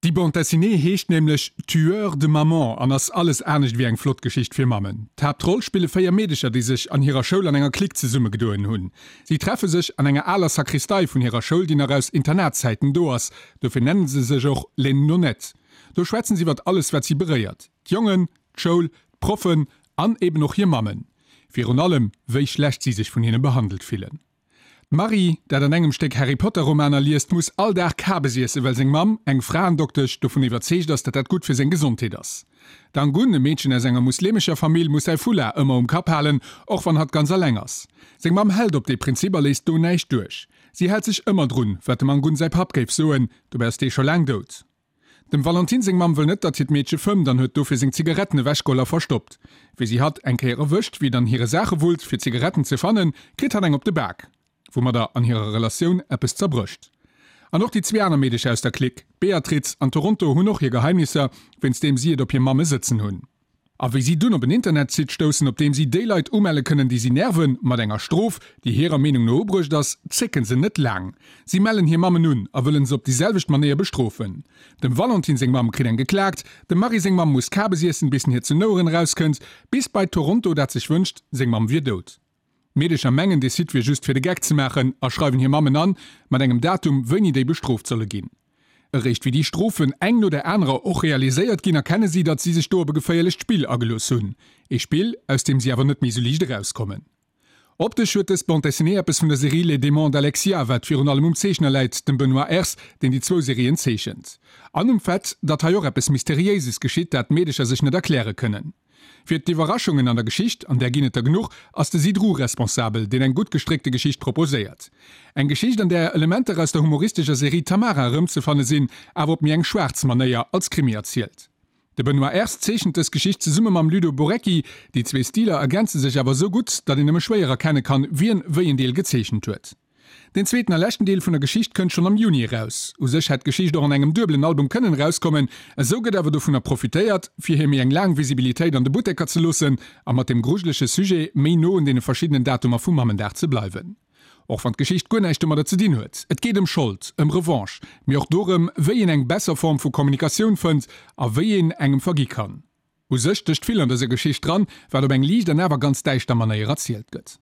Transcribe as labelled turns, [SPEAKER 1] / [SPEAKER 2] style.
[SPEAKER 1] Déi Bande dessinée heescht nämlech Tueurs de mamans an ass alles anescht ewéi eng flott Geschicht fir Mammen. D'Haaptroll spille 4 Meedecher, déi sech an hirer Schoul an enger Clique zesummegedoen hunn. Si treffe sech an enger aler Sakristei vun hirer Schoul, déi nach aus Internatszäiten do ass, dofir nennen se sech och Les Nonettes. Do schwätzen se iwwert alles wat si beréiert, d'Jongen, d'Schoul, d'Proffen an eben och hir Mammen. Virun allem wéi schlecht si sech vun hinne behandelt fillen. D'Marie, dat an engem Stéck Harry Potter Romaner liest, muss all Dag Kabes iessen, well seng Mamm, eng Fraendoktesch, dovun iwwerzeegt ass, datt dat gutt fir seng Gesondheet ass. D'Angun, e Meedchen aus enger muslemescher Famill, muss säi Foulard ëmmer um Kapp halen, och wann hatt ganz alleng ass. Seng Mamm hält op dee Prinzip a léisst do näischt duerch. Si hält sech ëmmer drun, wat dem Angun säi Papp géif soen, dobäi ass dee scho laang dout. Dem Valentine seng Mamm wëll net, datt hiert Meedche fëmmt an huet dofir seng Zigaretten ewechgeholl a verstoppt. Wéi si hatt eng Kéier erwëscht, wéi et an hire Saache wullt, fir Zigaretten ze fannen, kritt hatt eng op de Bak, woumadder an hirer Relatioun eppes zerbrécht. An och déi zwee aner Meedecher aus der Clique, d'Beatriz an Toronto, hunn och hir Geheimnisser, wéinst deem si et op hir Mamme sëtzen hunn. A wéi si dunn op en Internetsite stoussen, op deem si déi Leit umelle kënnen, déi si nerven, mat enger Strof, déi hirer Meenung no ubruecht ass, zécken se net laang. Si mellen hir Mammen un a wëllen se op déi selwecht Manéier bestrofen. Dem Valentin seng Mamm kritt eng geklaakt, dem Marie seng Mamm muss Kabes iessen, bis en hir zu Noueren erauskënnt, bis bei Toronto, dat sech wënscht, seng Mamm wier dout. D'Meedecher mengen, dee Site wier just fir de Geck ze maachen a schreiwen hir Mammen an, mat engem Datum, wéini déi bestrooft solle ginn. Eréischt wéi déi Strofen eng no der anerer och realiséiert ginn, erkenne si, datt si sech do op e geféierlecht Spill agelooss hunn. Ee Spill, aus deem si awer net méi sou liicht erauskommen. Optesch huet dës Bande dessinée eppes vun der Serie Les Démons d'Alexia, wat virun allem um Zeechner läit, dem Benoît Ers, deen déi zwou Serien zeechent. An um Fait, datt hei och eppes Mysteriéises geschitt, dat d'Meedecher sech net erkläre kënnen. Fir d'Iwwerraschungen an der Geschicht, an där ginn et der genuch, ass de Sidru responsabel, deen eng gutt gestréckte Geschicht proposéiert. Eng Geschicht, an där Elementer aus der humoristescher Serie Tamara erëmzefanne sinn, awer op méi eng schwaarz Manéier als Krimi erzielt. De Benoît Ers zeechent dës Geschicht zesumme mam Ludo Borecki. Déi zwee Stiler ergänze sech awer esou gutt, datt een nëmme schwéier erkenne kann, wien wéi en Deel gezeechent huet. Den zweeten a leschten Deel vun der Geschicht kënnt schonn am Juni eraus. U sech hätt d'Geschicht och an engem duebelen Album kënnen erauskommen, esou gëtt awer dovunner profitéiert, fir hir méi eng laang Visibilitéit an de Butteker ze loossen a mat dem grujelege Sujet méi no un deene verschiddenen Datumer vum Mammendag ze bleiwen. Och wann d'Geschicht guer näischt domadder ze dinn huet. Et geet ëm Schold, ëm Revanche, mee och dorëm, wéi een eng besser Form vu Kommunikatioun fënnt a wéi een engem vergi kann. U sech stécht vill an dëser Geschicht dran, wat op eng liicht an awer ganz däischter Manéier erzielt gëtt.